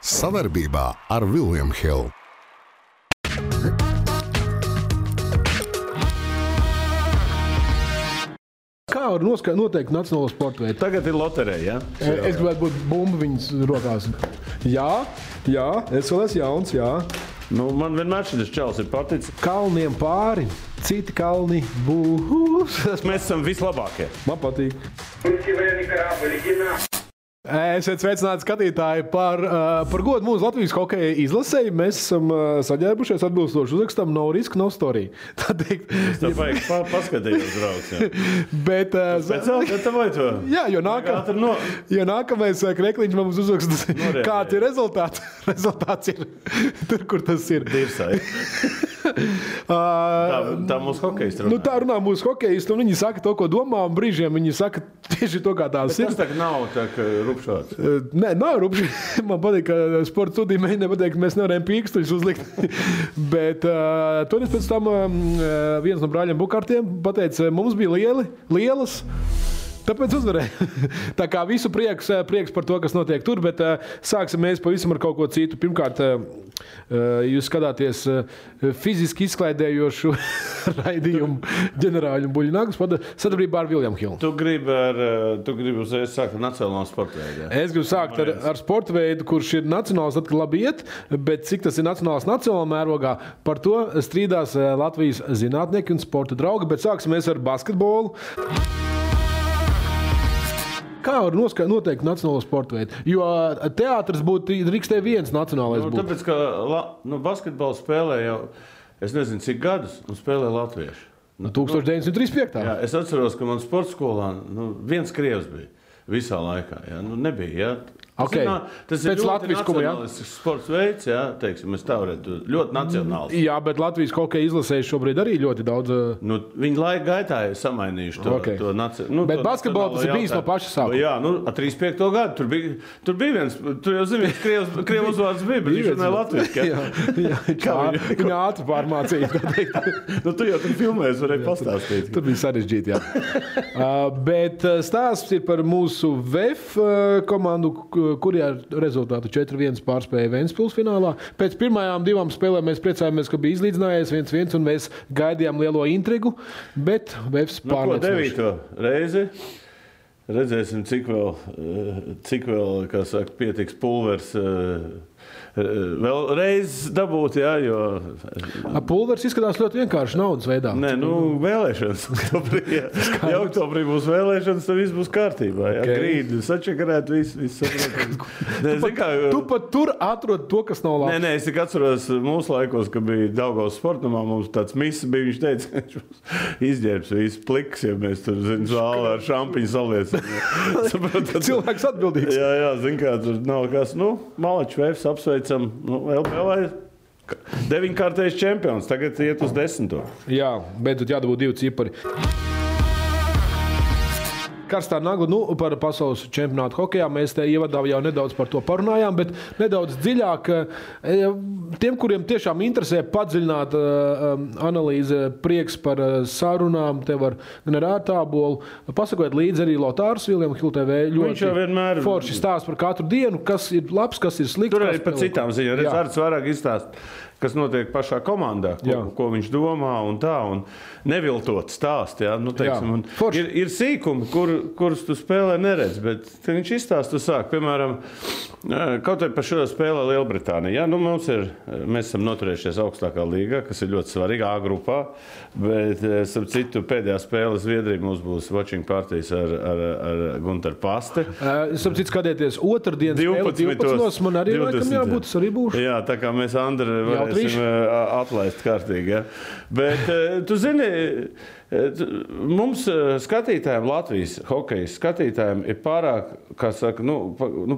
Savarbībā ar William Hill. Kā var noteikt nacionālo sporta veidu? Tagad ir loterija, ja? Es gribētu būt bumba viņas rokās. Jā, es vēl esmu jauns, jā. Nu, man vienmēr šis čels ir paticis. Kalniem pāri, citi kalni būs. Mēs esam vislabākie. Man patīk. Esiet sveicināti skatītāji par godu mūsu Latvijas hokeja izlasei. Mēs esam saģērbušies atbilstoši uzrakstam nav riska, nav storija. Tā teikt. Es tev vajag paskatījos, draugs. Jā. Bet... Speciāli gatavoju to? Jā, jo nākamais krekliņš mums uzraksta, kāds ir rezultāts. Rezultāts ir tur, kur tas ir. Dirsai. Tā mūsu hokejisti runā. Nu, tā runā mūsu hokejisti, un viņi saka to, ko domā, un brīžiem viņi saka tieši to, kā tās ir. Bet tas tā nav tā, ka rupšāds. Nē, nav rupšāds. Man patīk, ka sporta studija mēģina pateikt, ka mēs nevarējam pīkstuļus uzlikt. Bet toreiz pēc tam viens no brāļiem Bukārtiem pateica, mums bija lielas, tāpēc uzvarēja. Tā kā visu prieks par to, kas notiek tur, bet sāksim mēs pavisam ar kaut ko citu. Pirmkārt, jūs skatāties fiziski izklaidējošu raidījumu ģenerāļu Buļļnaglas sadarbībā ar William Hill. Tu gribi uzreiz sākt ar nacionālo sporta veidu. Es gribu sākt ar sporta veidu, kurš ir nacionāls, tad labi iet, bet cik tas ir nacionāls nacionālā mērogā, par to strīdās Latvijas zinātnieki un sporta draugi, bet sāksim mēs ar basketbolu. Kā var noteikt nacionālo sporta veidu? Jo teātris būtu drīkstē viens nacionālais būt. Tāpēc, ka basketbolu spēlē jau, es nezinu, cik gadus, un spēlē latvieši. 1935. Jā, es atceros, ka man sporta skolā viens krievs bija visā laikā. Jā, nebija, jā. Tas ir ļoti nacionālisks sports veids, jā, teiksim, mēs tā varētu ļoti nacionāls. Jā, bet Latvijas hokeja izlasēji šobrīd arī ļoti daudz. Viņi laika gaitā ir samainījuši to nacionālo. Bet basketbolu tas ir bijis no paša sākuma. Jā, 35. gadu. Tur bija viens, tur jau zini, krievu uzvārds bija, bet viņš runāja latviski. Viņa ātri pārmācīja. Tu jau tur filmēs varēja pastāstīt. Tur bija sarežģīti, jā. Bet stāsts ir par mūsu VF komandu, kuri ar rezultātu 4-1 pārspēja Ventspils finālā. Pēc pirmajām 2 spēlēm mēs priecājāmies, ka bija izlīdzinājies 1-1, un mēs gaidījām lielo intrigu, bet Vefs pārliecinoši. 9. reizi redzēsim, cik vēl, kā saka, pietiks pulvers vēl reiz dabūt, jā, jo... Pulvers izskatās ļoti vienkārši naudas veidā. Nē, vēlēšanas. Ja oktobrī būs vēlēšanas, tad viss būs kārtībā. Jā, grīdi, sačakarēt, viss saprot. Tu pat tur atrod to, kas nav labs. Nē, es tik atceros mūsu laikos, ka bija Daugavas sportamā, mums tāds miss bija, viņš teica, ka viņš mums izģērbs viss pliks, ja mēs tur, zālē ar šampiņu saliecam. Cilvēks atbildīgs. Jā, zin kā, tur nav kas, Malačs Vefs apsveicam, LBL 9-kārtais čempions, tagad iet uz 10. Jā, beidzot jādabū 2 cipari. Karstā nagla, par pasaules čempionātu hokejā mēs te ievadā jau nedaudz par to parunājām, bet nedaudz dziļāk tiem, kuriem tiešām interesē padziļināt analīze, prieks par sarunām, te var gan ar ārtābolu, pasakot līdzi arī Lotārs William Hill TV ļoti forši stāst par katru dienu, kas ir labs, kas ir slikts. Tur arī par citām ziņām, redz vairāk izstāst, kas notiek pašā komandā, ko viņš domā un tā, un neviltot stāst, jā, teiksim, ir sīkumi, kurus tu spēlē neredz, bet viņš izstāst, tu sāk, piemēram, kaut arī par šo spēlē Lielbritānija, mēs esam noturējušies augstākā līgā, kas ir ļoti svarīga A grupā, bet, starp citu, pēdējā spēle Zviedrija mums būs watching partijas ar Guntaru Paste. Starp citu, skatieties, otrdien spēle 12. Man arī laikam jābūt, es arī būšu. Jā, tā kā mēs Andri varēsim atlaist kārtīgi, ja. Bet, tu zini, mums skatītājiem, Latvijas hokejas skatītājiem ir pārāk, kā saka,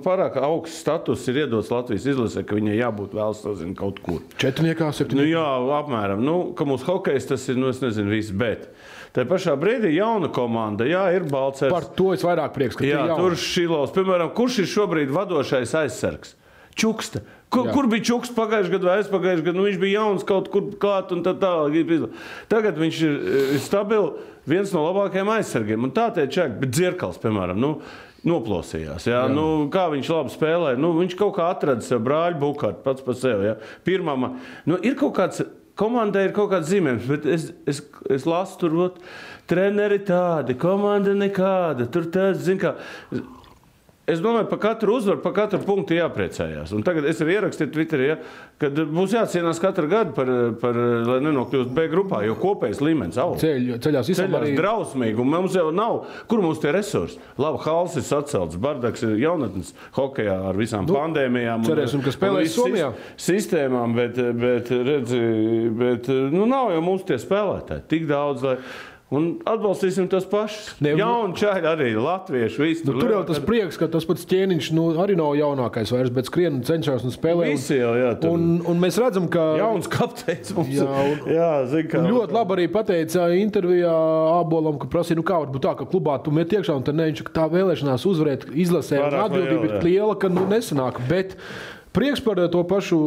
pārāk augsts status ir iedots Latvijas izlasē, ka viņai jābūt vēl sazina kaut kur. 4, 7. Jā, apmēram. Ka mūsu hokejs tas ir, es nezinu viss, bet tā pašā brīdī jauna komanda, jā, ir Balcers. Par to es vairāk prieks, ka jā, tur Šilovs. Piemēram, kurš ir šobrīd vadošais aizsargs? Čuksta. Kur bija Čuks pagājušajā gadā vai aizpagājušajā gadā? Viņš bija jauns kaut kur klāt un tā tālāk. Tagad viņš ir stabili, viens no labākajiem aizsargiem. Un tā tie čak, bet Dzirkals, piemēram, noplosījās. Jā? Nu, kā viņš labi spēlē. Nu, viņš kaut kā atrada sev brāļu Bukārtu pats par sevi. Jā? Pirmā, nu, ir kaut kāds, komandai ir kaut kāds zīmējums, bet es lasu tur, treneri tādi, komanda nekāda. Tur tāds, zin kā... Es domāju, par katru uzvaru, par katru punktu jāpriecājās. Un tagad es arī ierakstīju Twitterī, kad būs jācienās katru gadu, lai nenokļūst B grupā, jo kopējais līmenis aug. Ceļās arī drausmīgi, un mums jau nav, kur mums tie resursi? Labi, Hals ir sacelts, Bardaks ir jaunatnes hokejā ar visām pandēmijām. Cerēsim, ka spēlēs Somijā. Sistēmām, bet nav jau mums tie spēlētāji tik daudz, lai... Un atbalstīsim tos pašus. Jauni čaļi arī, latvieši, visi. Tur jau tas prieks, ka tas pats Ķēniņš arī nav jaunākais vairs, bet skrien cenšas un spēlē. Visi jau, jā. Un mēs redzam, ka... Jauns kapteinis mums. Zin kā. Ļoti labi arī pateica intervijā Ābolam, ka prasīja, kā var būt tā, ka klubā tu met iekšā, un tad viņš tā vēlēšanās uzvarēt izlasē, un atbildība ir liela, ka nesanāk. Bet prieks par to pašu,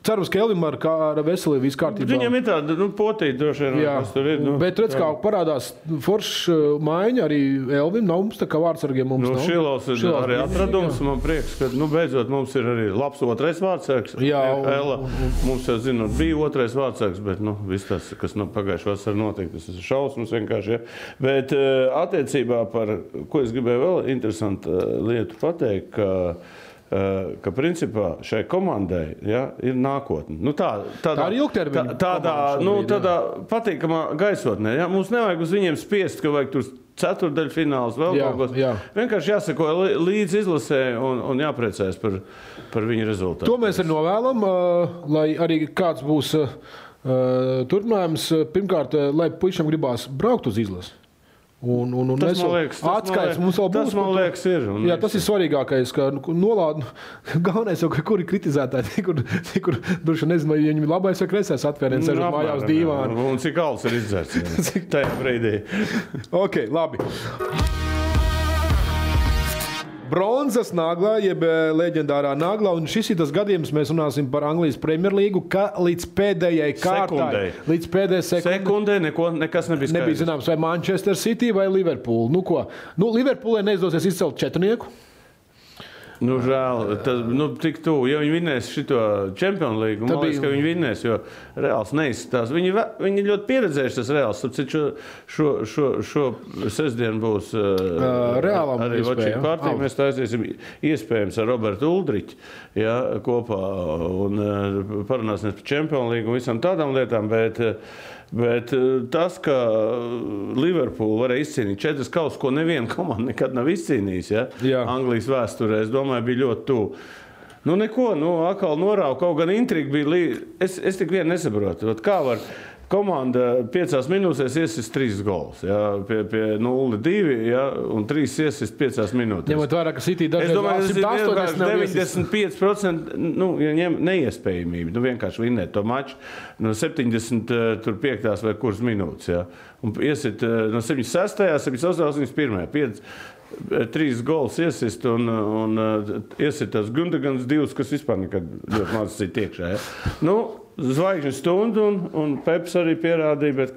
cerams, ka Elvim ar veselību viss kārtībā. Viņam ir tāda, potīta droši vien, kas tur ir. Bet redz, kā parādās forša maiņa arī Elvim, nav mums tā kā vārdsargiem mums nav. Šilovs ir arī atradums, man prieks, ka, beidzot mums ir arī labs otrais vārdsargs. Jā. Ela, mums jau zinot, bija otrais vārdsargs, bet, viss tas, kas pagājušajā vasarā notiek, tas ir šausmas vienkārši, ja. Bet attiecībā par, ko es gribēju vēl interesantu lietu pateikt, ka principā šai komandai ir nākotne. Tā ir ilgtermiņa. Tādā patīkamā gaisotnē. Ja? Mums nevajag uz viņiem spiest, ka vajag tur ceturdaļfināls vēl kaut kas. Vienkārši jāsako līdz izlasē un jāpriecājas par viņu rezultātu. To mēs arī novēlam, lai arī kāds būs turpinājums. Pirmkārt, lai puišiem gribās braukt uz izlasi. Tas, man liekas, ir. Jā, tas ir svarīgākais, ka nolāda. Galvenais jau, ka kuri kritizētāji, kur droši nezinu, vai viņam ir labais vai kreisais atvēriens, sēžot mājās dīvāni. Un cik alus ir izdzerts tajā brīdī. Ok, labi. Bronzas naglā, jeb leģendārā naglā, un šis ir tas gadījums, mēs runāsim par Anglijas Premjerlīgu, ka līdz pēdējai kārtai, līdz pēdējai sekundē nekas nebija skaidrs. Nebija zināms, vai Manchester City vai Liverpool. Liverpoolai neizdosies izcelt četrnieku. Žēl, tik tuvu. Ja viņi vinnēs šito Champions League, man liekas, ka viņi vinnēs, jo Reāls neizskatās. Viņi ļoti pieredzējuši tas Reāls. Šo sestdienu būs Reālam arī Vačīka partija. Mēs taisīsim iespējams ar Robertu Uldriķu kopā un parunāsimies par Champions League un visam tādām lietām, bet tas, ka Liverpool varēja izcīnīt 4 kausus, ko neviena komanda nekad nav izcīnījis, Anglijas vēsturē, es domāju, bija ļoti tuvu. Atkal norāva, kaut gan intriga bija es tik vien nesaprotu. Kā var komanda 5 minūtēs iesist 3 gols, pie 0-2, un 3 iesist 5 minūtēs. Ņemot vērā, ka City dažreiz 95% neiespējamība. Vienkārši vinnēt to maču no 75. vai kuras minūtes. Un iesit no 76., 78., 81. 3 gols iesist un iesit tās Gundagans 2, kas vispār nekad ļoti maz cita iekšā. Zvaigžņu stundu un Peps arī pierādīja, bet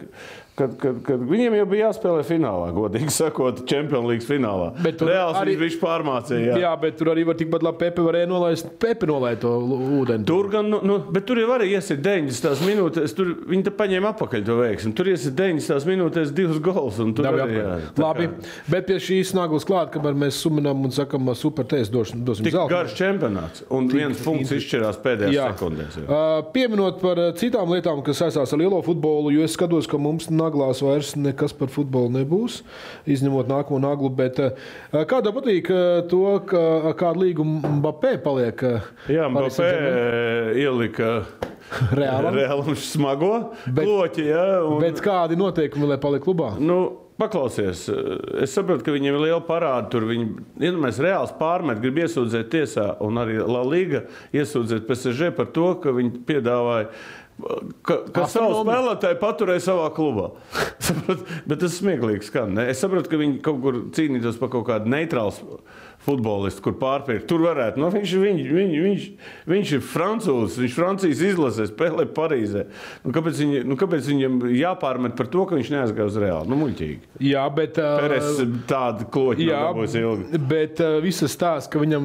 kad viņiem jau bija jāspēlē finālā, godīgi sakot, Champions League finālā. Reāls arī viņš pārmācīja. Jā, bet tur arī var tikpat labi Pepe varēja nolaist to ūdeni. Tur gan, bet tur jau arī iesit 90 minūtēs, viņi te paņēma apakaļ to veiksmi. Tur iesit 90 minūtēs 2 gols. Labi, bet pie šīs naglas klāt, kamēr mēs suminām un sakam super tēs, dosim zeltu. Tik garš čempionāts un viens punkts izšķirās pēdējās sekundēs. Pieminot par citām lietām, kas saistās ar lielo futbolu, jo es skatos, ka mums naglās vairs nekas par futbolu nebūs, izņemot nākamo naglu, bet kādā patīk to, ka kādu līgumu Mbappé paliek? Jā, Mbappé ielika Reālam smago kloķi, Bet kādi noteikumi, lai paliek klubā? Paklausies, es saprotu, ka viņiem ir liela parāda tur. Mēs Reāls pārmet, grib iesūdzēt tiesā, un arī La Liga iesūdzēt PSG par to, ka viņi piedāvāja ka savu spēlētāju paturēja savā klubā. Bet tas smieklīgi skan. Ne? Es saprotu, ka viņi kaut kur cīnītos par kaut kādu neitrālu futbolists, kur pārpirkt. Tur varētu. Nu, viņš ir francūzs, viņš Francijas izlasē spēlē Parīzē. Kāpēc viņam jāpārmet par to, ka viņš neaizgāja uz Reāli? Nu, muļķīgi. Jā, bet... Peres tāda kloķi dabūs ilgi. Bet visas stāsts, ka viņam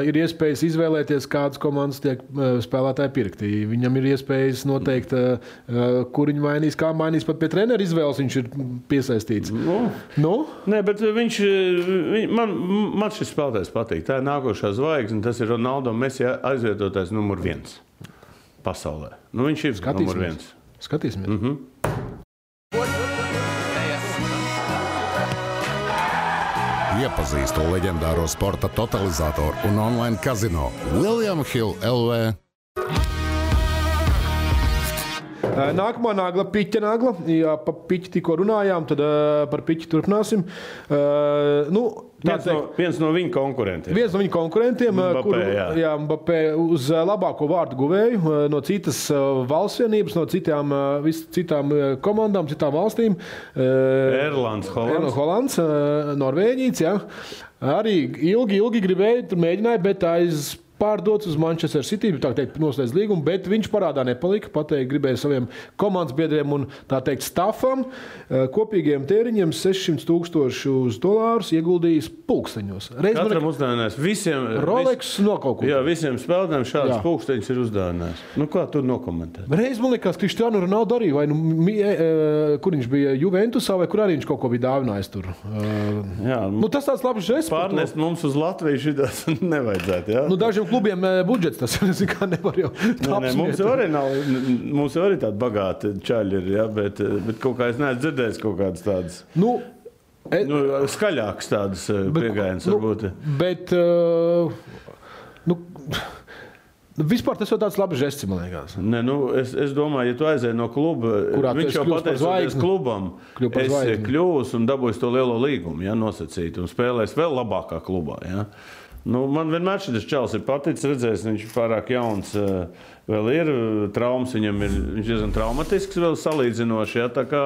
ir iespējas izvēlēties, kādas komandas tiek spēlētāji pirkti. Viņam ir iespējas noteikt, kur viņi mainīs, kā mainīs. Pat pie trenera izvēles viņš ir piesaistīts. Nu? Nē, bet man šis spēlētājs patīk. Tā ir nākošā zvaigzne, tas ir Ronaldo Messi aizvietotais numur 1 pasaulē. Nu, viņš ir numur 1. Skatīsimies. Iepazīstu leģendāro sporta totalizatoru un online kazino William Hill LV. Nākamā nagla, piķa nagla. Jā, pa piķi tikko runājām, tad par piķi turpināsim. Viens no viņa konkurentiem. Mbappé uz labāko vārdu guvēju no citas valsts vienības, no citām komandām, citām valstīm. Erlands, Holands, Norvēģīts, jā. Arī ilgi gribēja, tur mēģināja, bet pārdots uz Manchester City, tā teikt, noslēdz līgumu, bet viņš parādā nepalika, pateikt, gribēja saviem komandas biedriem un, tā teikt, stafam kopīgiem tēriņiem $600,000 ieguldījis pulksteņos. Katram uzdāvinājis. Rolex no kaut ko. Jā, visiem spēlētājiem šādas pulksteņus ir uzdāvinājis. Nu, kā tur nokomentēt? Reiz man liekas, Cristiano Ronaldo arī, vai kur viņš bija Juventusā, vai kur arī viņš kaut ko bija dāvinājis tur. Tas tāds labs žests. Pārnest mums uz Latviju šitās nevajadzētu, jā? Dažiem klubiem budžets tas kā nevar jau Mums jau arī tādi bagāti čaļi ir, ja, bet kaut kā es neesmu dzirdējis kaut kādas tādas skaļākas tādas piegājienas varbūt. Bet vispār tas jau tāds labs žests, man liekas. Ne, es domāju, ja tu aizēji no kluba, viņš jau pateicoties klubam, es kļūs un dabūs to lielo līgumu, ja, nosacīt, un spēlēs vēl labākā klubā, ja. Man vienmēr šis čalis ir paticis, redzējis, viņš ir pārāk jauns, vēl ir traumas, viņš diezgan traumatisks vēl salīdzinoši, ja, tā kā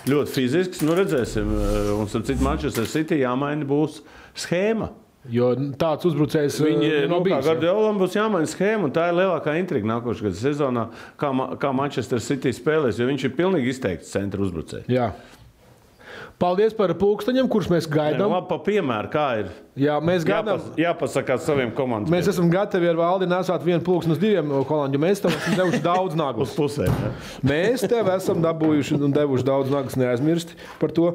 ļoti fizisks, redzēsim, un starp citu Manchester City jāmaina būs schēma. Jo tāds uzbrucējs nav bijis. Kā Gardiolam būs jāmaina schēma, un tā ir lielākā intriga nākošā gada sezonā, kā Manchester City spēlēs, jo viņš ir pilnīgi izteikts centra uzbrucējs. Jā. Paldies par pulksteņiem, kurus mēs gaidām. Labi, pa piemēru, kā ir. Jā, mēs gaidām. Jāpasakās saviem komandām. Mēs esam gatavi ar Valdi nesāt vienu pulksteni uz 2 holandžu. Mēs tev esam devuši daudz naglus. Uz pusēm, ja. Mēs tev esam dabūjuši un devuši daudz naglus, neaizmirsti par to.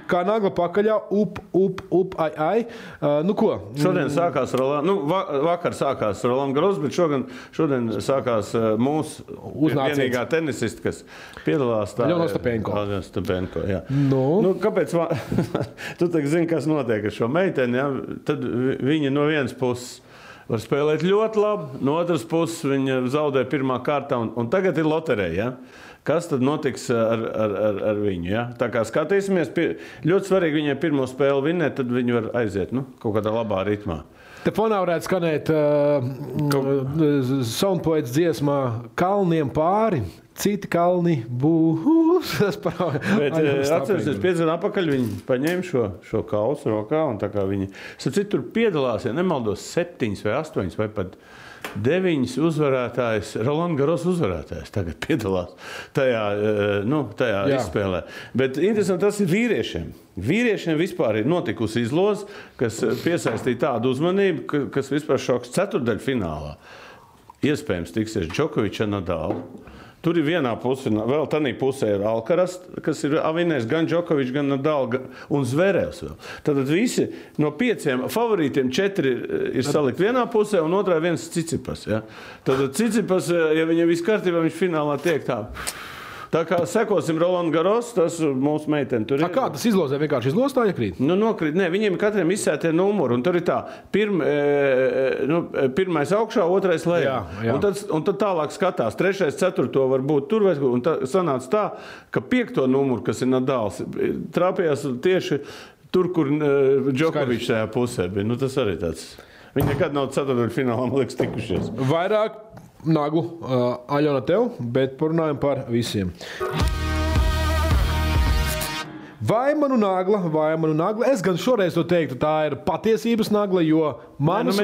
Kā nagla pakaļā, ai. Ko? Šodien sākās vakar sākās Roland Garros, bet šodien sākās mūsu vienīgā tenisista, kas piedalās tā. Aļona Ostapenko. Jā. Kāpēc? Tu tagad zini, kas notiek ar šo meiteni, ja? Tad viņa no vienas puses var spēlēt ļoti labi, no otras puses viņa zaudē pirmā kārtā, un tagad ir loterija, ja? Kas tad notiks ar viņu? Ja? Tā kā skatīsimies, ļoti svarīgi viņai pirmo spēli vinnēt, tad viņi var aiziet kaut kādā labā ritmā. Te fonā varētu skanēt Soundpoets dziesmā Kalniem pāri, citi kalni būs. Bet atcerēsimies, 5 gadu atpakaļ viņi paņēma šo kausu rokā, un tā kā viņi, tur piedalās, ja nemaldos, 7 vai 8 vai pat 9 uzvarētājs, Roland Garros uzvarētājs tagad piedalās tajā izspēlē. Bet interesanti tas ir vīriešiem. Vīriešiem vispār ir notikusi izloze, kas piesaistīja tādu uzmanību, kas vispār šoks ceturtdaļfinālā. Iespējams tiksies Džokoviča Nadāla. Tur ir vienā pusē, vēl tādā pusē ir Alcaraz, kas ir avinējis gan Džokovičs, gan Nadal un Zverevs vēl. Tad visi no 5 favorītiem 4 ir salikt vienā pusē un otrā viens Tsitsipas. Ja? Tad Tsitsipas, ja viņam viss kārtībā, viņš finālā tiek tā. Tā kā sekosim Roland Garros, tas mūsu meiteni tur ir. Kā tas izlozē? Vienkārši izlozē tā iekrīt? Nokrīt. Nē, viņiem katram izsētie numuri, un tur ir tā, pirmais augšā, otrais lejā. Un tad tālāk skatās, 3., 4. var būt tur, un sanāca tā, ka 5. numuru, kas ir Nadals, trāpījās tieši tur, kur Džokovičs tajā pusē bija. Tas arī tāds. Viņi nekad nav ceturtdaļfinālā, man liekas, tikušies. Vairāk naglu Aļona tev, bet parunājam par visiem. Vai manu nagla. Es gan šoreiz to teiktu, tā ir patiesības nagla, jo manas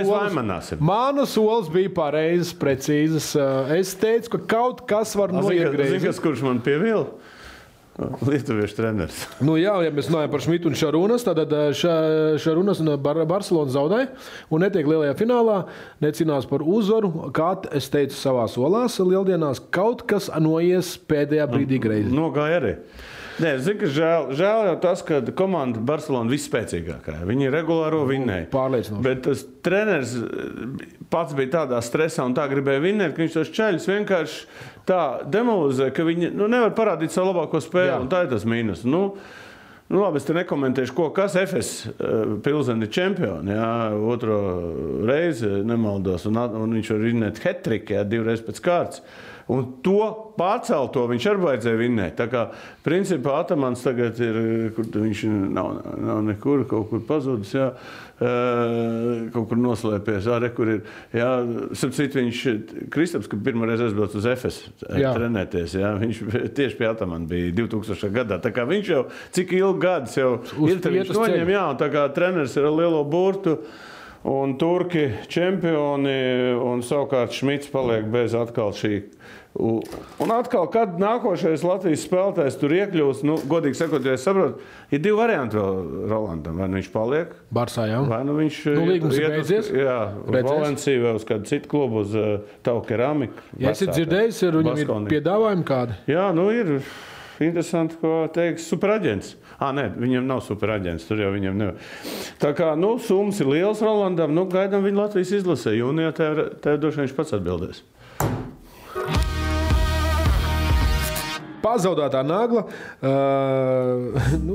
solis bija pareizes, precīzes. Es teicu, ka kaut kas var noiegriezīt. Zini, kurš man pievila? Lietuviešu treneris. Jā, ja mēs runājam par Šmitu un Šarunas, tad Šarunas un Barcelona zaudēja un netiek lielajā finālā, necīnās par uzvaru. Kā es teicu savās solās lieldienās, kaut kas noies pēdējā brīdī greizi. Nogāja arī. Nē, zinu, ka žēl jau tas, ka komanda Barcelona visspēcīgākā. Viņi regulāro vinnēja. Pārliecinoši. Bet tas treneris pats bija tādā stresā un tā gribēja vinnēt, ka viņš tos čaļus vienkārši tā demolizē, ka viņi nevar parādīt savu labāko spēli. Un tā ir tas mīnus. Labi, es te nekomentēšu, kas FS Pilseni čempioni, otro reizi nemaldos, un viņš var vinnēt hat-trick, 2 reizes pēc kārtas. Un to pārcelto viņš arī vajadzēja vinnēt. Tā kā, principā, Atamans tagad ir, kur viņš nav nekur, kaut kur pazudis, kaut kur noslēpies, kur ir, sapcīt viņš, Kristaps, kad pirmoreiz aizbrauc uz FS trenēties, viņš tieši pie Atamana bija 2000. gadā. Tā kā viņš jau, cik ilgi gadus jau ir, viņš noņem, un tā kā treneris ir ar lielo burtu, un turki čempioni, un savukārt Šmits paliek bez atkal šī. Un atkal, kad nākošais Latvijas spēlētājs tur iekļūst, godīgi sakot, ja es saprotu, ir 2 varianti vēl Rolandam. Vai viņš paliek? Barsā, jā. Vai viņš līgums ir beidzies? Jā, uz Valenciju vai uz kādu citu klubu, uz Tau Keramiku. Ja esi dzirdējis, viņam ir piedāvājumi kādi? Jā, ir interesanti, ko teiks superaģents. Nē, viņam nav superaģents, tur jau viņam nevar. Tā kā, summas ir liels Rolandam, gaidām viņu Latvijas izlasē. Jūnijā tev droši viņš pats atbildēs. Pazaudētā nagla,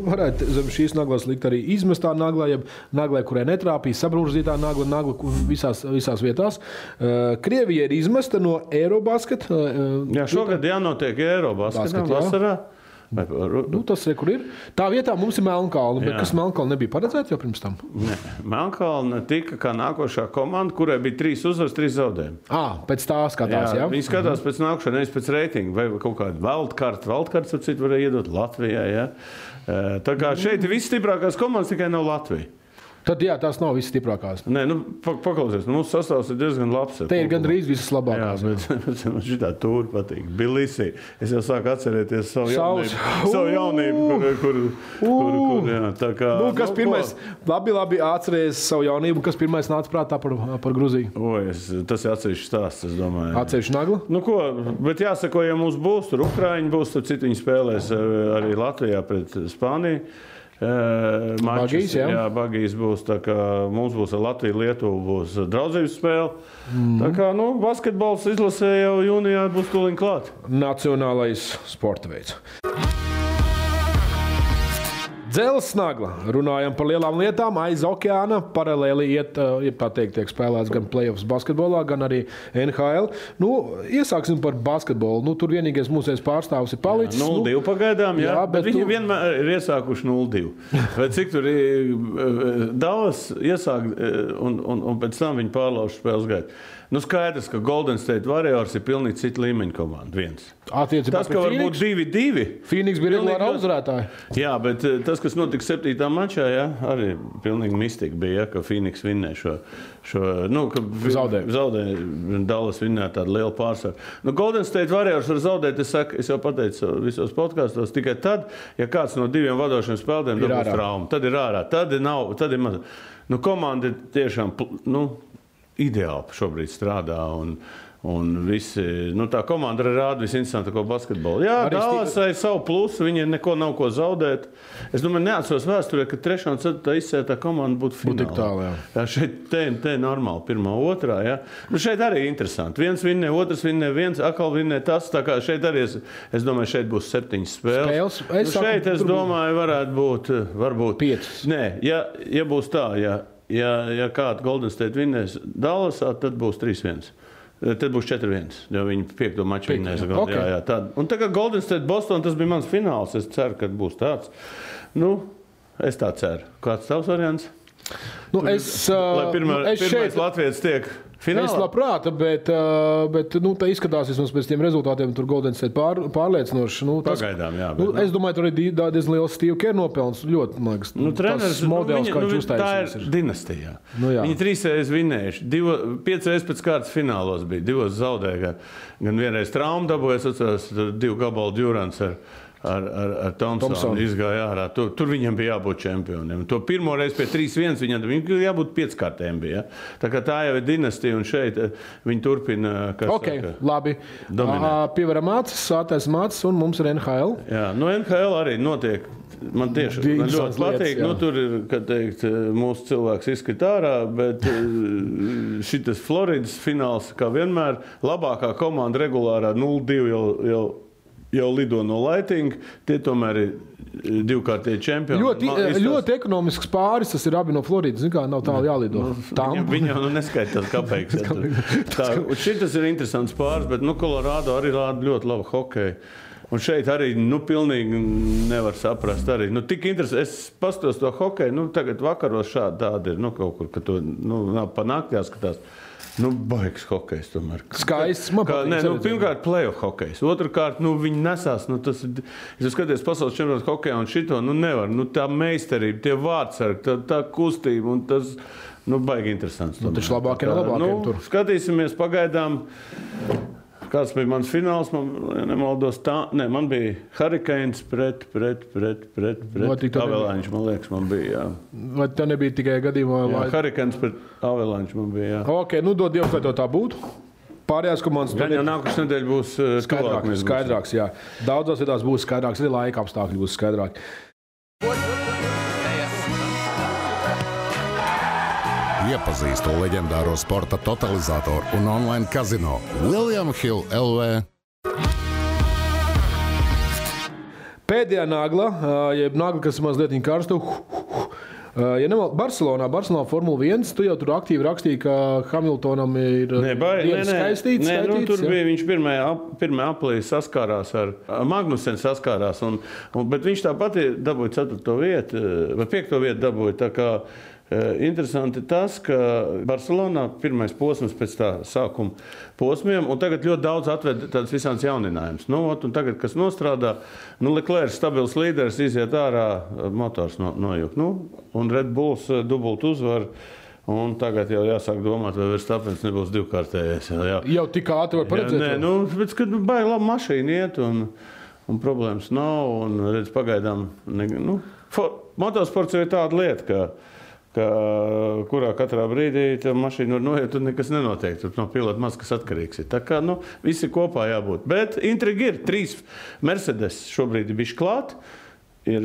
varētu zem šīs naglas likt arī izmestā naglā, jeb naglai, kurai netrāpīja, sabrūžzītā nagla visās vietās. Krievija ir izmesta no Eurobasket. Jā, šogad jānotiek Eurobasketam vasarā. Tas ir, kur ir. Tā vietā mums ir Melnkalna, bet kas Melnkalna nebija paredzēta jau pirms tam? Nē, Melnkalna tika kā nākošā komanda, kurai bija 3 uzvaras, 3 zaudējumi. Pēc tā skatās, jā? Viņi skatās pēc nākošā, nevis pēc reitinga, vai kaut kādu wildcard. Wildcards, ap citu, varēja iedot Latvijai, jā. Tā kā šeit ir visstiprākās komandas, tikai nav Latvija. Tad jā, tās nav visas stiprākās. Nē, paklausies, mūsu sastāvs ir diezgan labs. Te ir gandrīz visas labākās. Jā, bet man šitā tūri patīk. Bilisī. Es jau sāku atcerēties savu jaunību, kur jā, tā kā... Kas pirmais, labi atceries savu jaunību, kas pirmais nāca prātā par Gruziju? Tas ir atsevišķi stāsts, es domāju. Atsevišķi nagla? Bet jāsako, ja mums būs, tur Ukraiņi būs, tad citu viņi spēlēs arī Latvijā pret Spāniju. Bagīs, jā, Bagīs būs, tā kā mums būs ar Latviju, Lietuvu būs draudzības spēle. Tā kā, basketbols izlasē jau jūnijā būs tūliņ klāt. Nacionālais sporta veids. Dzelzs nagla. Runājam par lielām lietām. Aiz okeāna paralēli tiek spēlēts gan playoffs basketbolā, gan arī NHL. Iesāksim par basketbolu. Tur vienīgais mūsējais pārstāvs ir palicis. 0-2 pagaidām, jā. Bet viņi vienmēr ir iesākuši 0-2. Vai cik tur ir Dallas iesāk un pēc tam viņi pārlauž spēles gaitu. Skaidrs, ka Golden State Warriors ir pilnīgi cita līmeņa komanda. Tas, ka varbūt 2-2. Phoenix bija regulāra uzvarētāja. Jā, bet tas, kas notika 7. mačā, arī pilnīgi mistika bija, ka Phoenix vinnē šo zaudēja Dallas vinnē tādu lielu pārsvaru. Golden State Warriors var zaudēt, es jau pateicu visos podkastos, tikai tad, ja kāds no 2 vadošiem spēlētājiem dabūs traumu. Tad ir ārā. Tad ir maz. Komanda ir tiešām, ideāli šobrīd strādā un visi, tā komanda arī rāda visinteresantāko basketbolu. Jā, Dallasai savu plusu, viņiem neko nav ko zaudēt. Es domāju, neatceros vēsturē, ka 3. un 4. izsētā komanda būtu finālā. Jā, šeit te normāli 1. 2. Jā. Šeit arī interesanti. Viens vinnē, otrs vinnē, viens atkal vinnē tas. Tā kā šeit arī, es domāju, šeit būs 7 spēles. Šeit, es domāju, varētu būt, varbūt 5. Nē, ja būs tā, ja kāda Golden State vinnēs Dallasā, tad būs 3-1. Tad būs 4-1, jo viņi 5. maču vinnēs. Okay. Jā. Un tagad Golden State Boston, tas bija mans fināls. Es ceru, ka būs tāds. Es tā ceru. Kāds tavs variants? Lai pirmais latvietis tiek finālā? Es labprāt, bet tā izskatās vismaz pēc tiem rezultātiem, tur Golden State pārliecinoši. Pagaidām, jā. Es domāju, tur arī diezgan liels Steve Kerr nopelns. Ļoti, man liekas, treneris, modelis, kā viņš uztaisījis. Tā ir dinastijā. Viņi 3 reizes vinējuši, 5 reizes pēc kārtas finālos bija, 2 zaudēja. Gan vienreiz traumu dabūja, 2 gabalu Durants ar Thompsonu izgāja ārā. Tur viņam bija jābūt čempioniem. To pirmo reizi pie 3-1 viņam jābūt 5-kārtēm bija. Tā kā tā jau ir dinastija, un šeit viņi turpina, labi. Pievaram acis, sātais acis, un mums ir NHL. Jā, NHL arī notiek. Man tieši ļoti patīk. Tur ir, kad teikt, mūsu cilvēks izskrit ārā, bet šitas Floridas fināls, kā vienmēr, labākā komanda regulārā 0-2 jau lido no Lightning, tie tomēr ir 2-kārtīgi čempioni. Ļoti ekonomisks pāris, tas ir abi no Floridas, kā nav tālu jālido. Viņi jau neskaitās kapeiks. Šitas ir interesants pāris, bet Colorado arī rāda ļoti labu hokeju. Un šeit arī pilnīgi nevar saprast. Arī. Tik interesanti. Es pastos to hokeju, tagad vakaros šādi tādi ir, kaut kur, ka to pa naktī jāskatās. Baigs hokejs tomēr. Skaists. Pirmkārt, playoff hokejs. Otrkārt, viņi nesās. Es skaties pasaules čempionātu hokejā un šito, nevar. Tā meistarība, tie vārdsargi, tā kustība un tas, baigi interesants. Taču labākiem tur. Skatīsimies pagaidām. Kāds bija mans fināls, nemaldos tā. Man bija Hurricanes pret Avalanche, man liekas, man bija, jā. Vai tā nebija tikai gadījumā? Jā, Hurricanes pret Avalanche man bija, jā. Ok, dod Dievs, vai tā būtu. Pārējās komandas... Gan jau nākušas nedēļa būs skaidrāks, jā. Daudzās vietās būs skaidrāks, arī laika apstākļi būs skaidrāki. Iepazīstu leģendāro sporta totalizatoru un online kazino William Hill LV. Pēdējā nagla, jeb nagla, kas mazliet karstu. Barcelonā Formula 1, tu jau tur aktīvi rakstīji, ka Hamiltonam ir skaistīts. Tur bija viņš pirmajā aplī saskārās ar Magnusen saskārās, bet viņš tāpat dabūja 4. vietu, vai 5. vietu dabūja, tā kā interesanti tas, ka Barcelonā pirmais posms pēc tā sākuma posmiem, un tagad ļoti daudz atved tādas visādas jauninājumus. Un tagad, kas nostrādā, Leclerc stabils līderis iziet ārā, motors nojuk. Un Red Bulls dubult uzvar, un tagad jau jāsāk domāt, vai Verstappens nebūs 2-kārtējais. Jau tik ātri var paredzēt? Nē, bet, kad baigi labi mašīna iet, un problēmas nav, un redz pagaidām, motosports ir tāda lieta, kurā katrā brīdī tā mašīna var noiet, un nekas nenotiek. Tur no pilota maz kas atkarīgs ir. Tā kā, visi kopā jābūt. Bet intriga ir. 3 Mercedes šobrīd ir bišķi klāt. Ir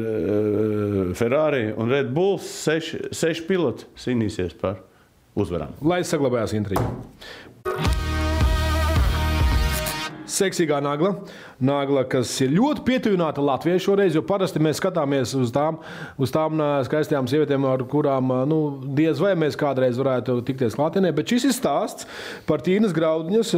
Ferrari un Red Bulls. 6 piloti cīnīsies par uzvarām. Lai saglabājās intriga. Seksīgā nagla, kas ir ļoti pietuvināta Latvijai šoreiz, jo parasti mēs skatāmies uz tām skaistajām sievietēm, ar kurām diez vai mēs kādreiz varētu tikties klātienē, bet šis ir stāsts par Tīnas Graudņas,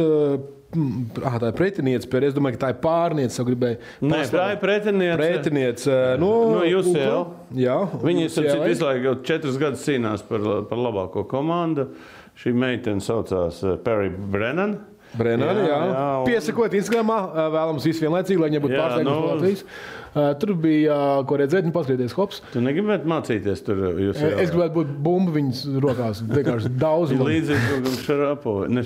tā ir pretiniece, es domāju, ka tā ir pārniece, jau gribēju. Nē, tā ir pretiniece. No UCL. Jā. Viņi vislaiku jau 4 gadus cīnās par labāko komandu. Šī meitene saucās Perry Brennan. Jā. Piesakot Instagramā, vēlams visu vienlaicīgi, lai viņai būtu pārsteigums no Latvijas. Tur bija, ko redzēt, paskatīties hops. Tu negribētu mācīties tur? Es gribētu būt bumbu viņas rokās, vienkārši daudz. Līdzīgi Šarapovi.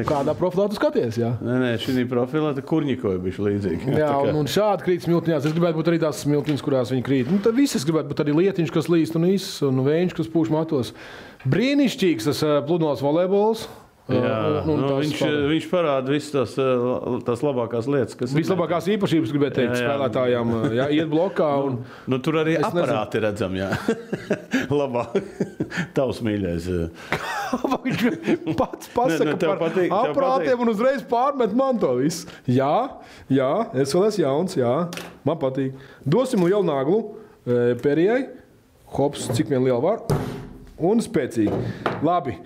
Kādā profilā tu skaties, jā? Nē, šī profilā te Kurņikovi bišķi līdzīgi. Jā, un šādi krīt smiltiņās. Es gribētu būt arī tās smiltiņas, kurās viņi krīt. Tad visas gribētu būt arī lietiņš, kas līst un vējš, kas pūš matos. Brīnišķīgs tas pludmales volejbols. Jā, viņš parāda visas tās labākās lietas, kas ir. Vislabākās īpašības, gribētu teikt, spēlētājām iet blokā. Tur arī aparāti redzam, jā. Labāk. Tavs mīļais. Viņš pats pasaka par aparātiem un uzreiz pārmet man to visu. Jā, es vēl esmu jauns, jā. Man patīk. Dosim lielu naglu Perijai. Hops, cik vien liela var. Un spēcīgi. Labi.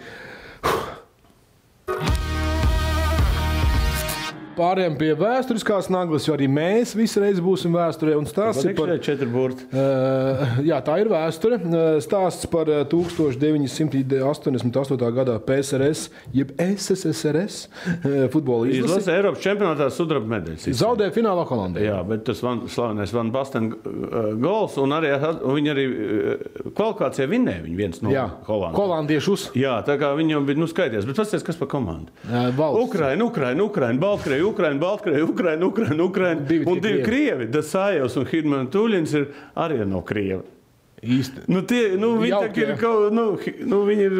Pārējām pie vēsturiskās naglas, jo arī mēs visreiz būsim vēsturē. Un stāsts ir par 4 burti. Jā, tā ir vēsture. Stāsts par 1988. gadā PSRS, jeb SSSRS futbola izlasi. Eiropas čempionātā sudraba medaļas. Zaudēja finālā Holandē. Jā, bet tas slavenais Van Basten gols, un viņi arī kvalifikācijā vinnēja viens no Holandiem. Holandiešus. Jā, tā kā viņi jau bija skaities. Bet pasties, kas par komandu? Ukraina, Baltkrieja, Ukraina. Un 2 Krievi, Dasājevs un Hidman Tuļins ir arī no Krievi. Īsti. Viņi ir kaut viņi ir...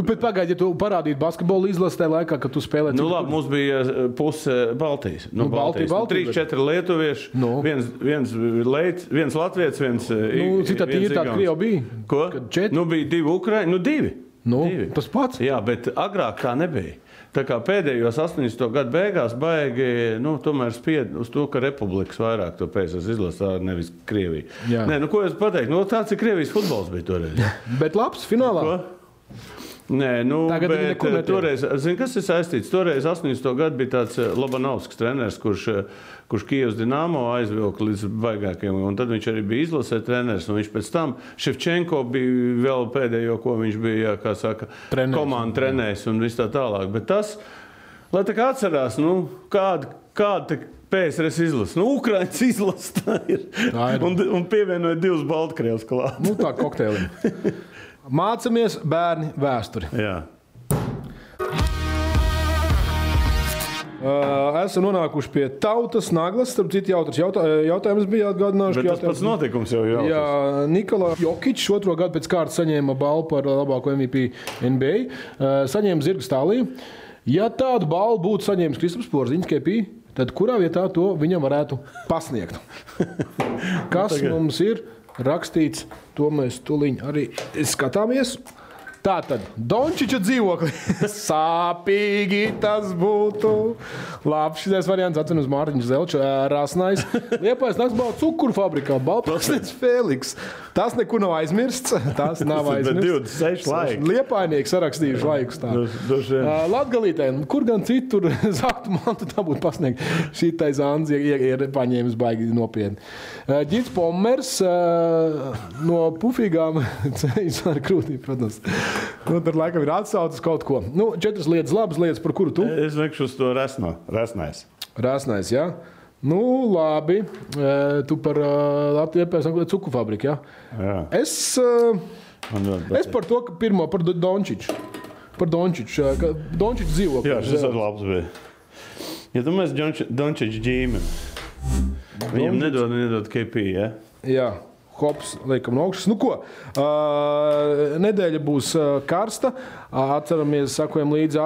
Bet pagaidi, ja tu parādītu basketbolu izlasi tajā laikā, kad tu spēlē... labi, mums bija puse Baltijas. Baltijas. 3-4 lietuvieši, viens latviets, viens... Citā tīri tāda Krievi bija? Ko? Bija 2 Ukraini, 2. Tas pats? Jā, bet agrāk tā nebija. Tā kā pēdējos 80. gadu beigās baigi, tomēr spied uz to, ka republikas vairāk to PSRS izlasā, nevis Krievija. Nē, ko es pateiktu? Tāds ir Krievijas futbols bija toreiz. Bet labs finālā? Ko? Nē, bet toreiz, kas ir saistīts? Toreiz 80. gadu bija tāds Lobanovskis treneris, kurš Kijevas Dinamo aizvilka līdz baigākiem, un tad viņš arī bija izlasē treneris, un viņš pēc tam Ševčenko bija vēl pēdējo, ko viņš bija, kā saka, komandu trenējis un viss tā tālāk. Bet tas, lai tā kā atcerās, kāda PSRS izlasa. Ukrainas izlasa tā ir. Un pievienoja 2 Baltkrievus klāt. Tā kokteilim. Mācamies, bērni, vēsturi. Jā. Esam nonākuši pie tautas naglas. Starp citu, jautājums bija atgādināšu. Bet tas pats notikums jau jautājums. Jā, Nikola Jokičs 2. gadu pēc kārtas saņēma balvu par labāko MVP NBA. Saņēma zirga stālī. Ja tādu balvu būtu saņēmis Kristaps Porziņš, KP, tad kurā vietā to viņam varētu pasniegt? Kas mums ir rakstīts, to mēs tuliņ arī skatāmies. Tātad, Dončiča dzīvokli. Sāpīgi tas būtu. Labi, šitais variants atceros Mārtiņš Zelčs, Rasnais. Liepājas naktsbalva cukuru fabrikā, Baltpārsnieks Fēliks. Tas nekur nav aizmirsts. Tas nav aizmirsts. 26 laiki. Liepājnieki sarakstījuši laikus tā. Latgalītē, kur gan citur zaktu mantu tā būtu pasniegt. Šitais Anzi ir paņēmis baigi nopietni. Ģits Pommers no pufīgām ceļas ar krūtīm, protams. Tur laikam ir atsaucis kaut ko. 4 lietas, labas lietas, par kuru tu? Es veikšu uz to Rasnais. Rasnais, jā. Labi. Tu par Latviju cukuru fabriku, jā? Jā. Es par to, ka pirmo par Dončiču. Par Dončiču. Dončiču dzīvokli. Jā, šis ir labs bija. Ja tu mēs Dončiču ģīmeni, viņam nedod KP, jā? Jā. Hops, liekam no augšas. Nedēļa būs karsta. Atceramies, sakojam līdzi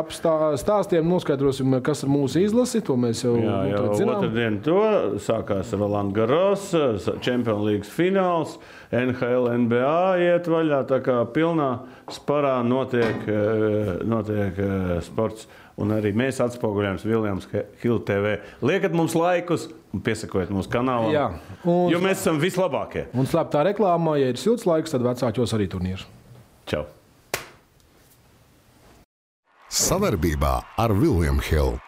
stāstiem, noskaidrosim, kas ir mūsu izlasi. To mēs jau zinām. Otrdien to sākās Roland Garros, Champions League fināls, NHL, NBA iet vaļā, tā kā pilnā sparā notiek sports. Un arī mēs atspoguļojam Williams Hill TV. Liekat mums laikus un piesakojiet mūsu kanālam, jo mēs esam vislabākie. Un slēptā reklāmā, ja ir silts laiks, tad vecākos arī turnīrs. Čau! Sadarbībā ar William Hill.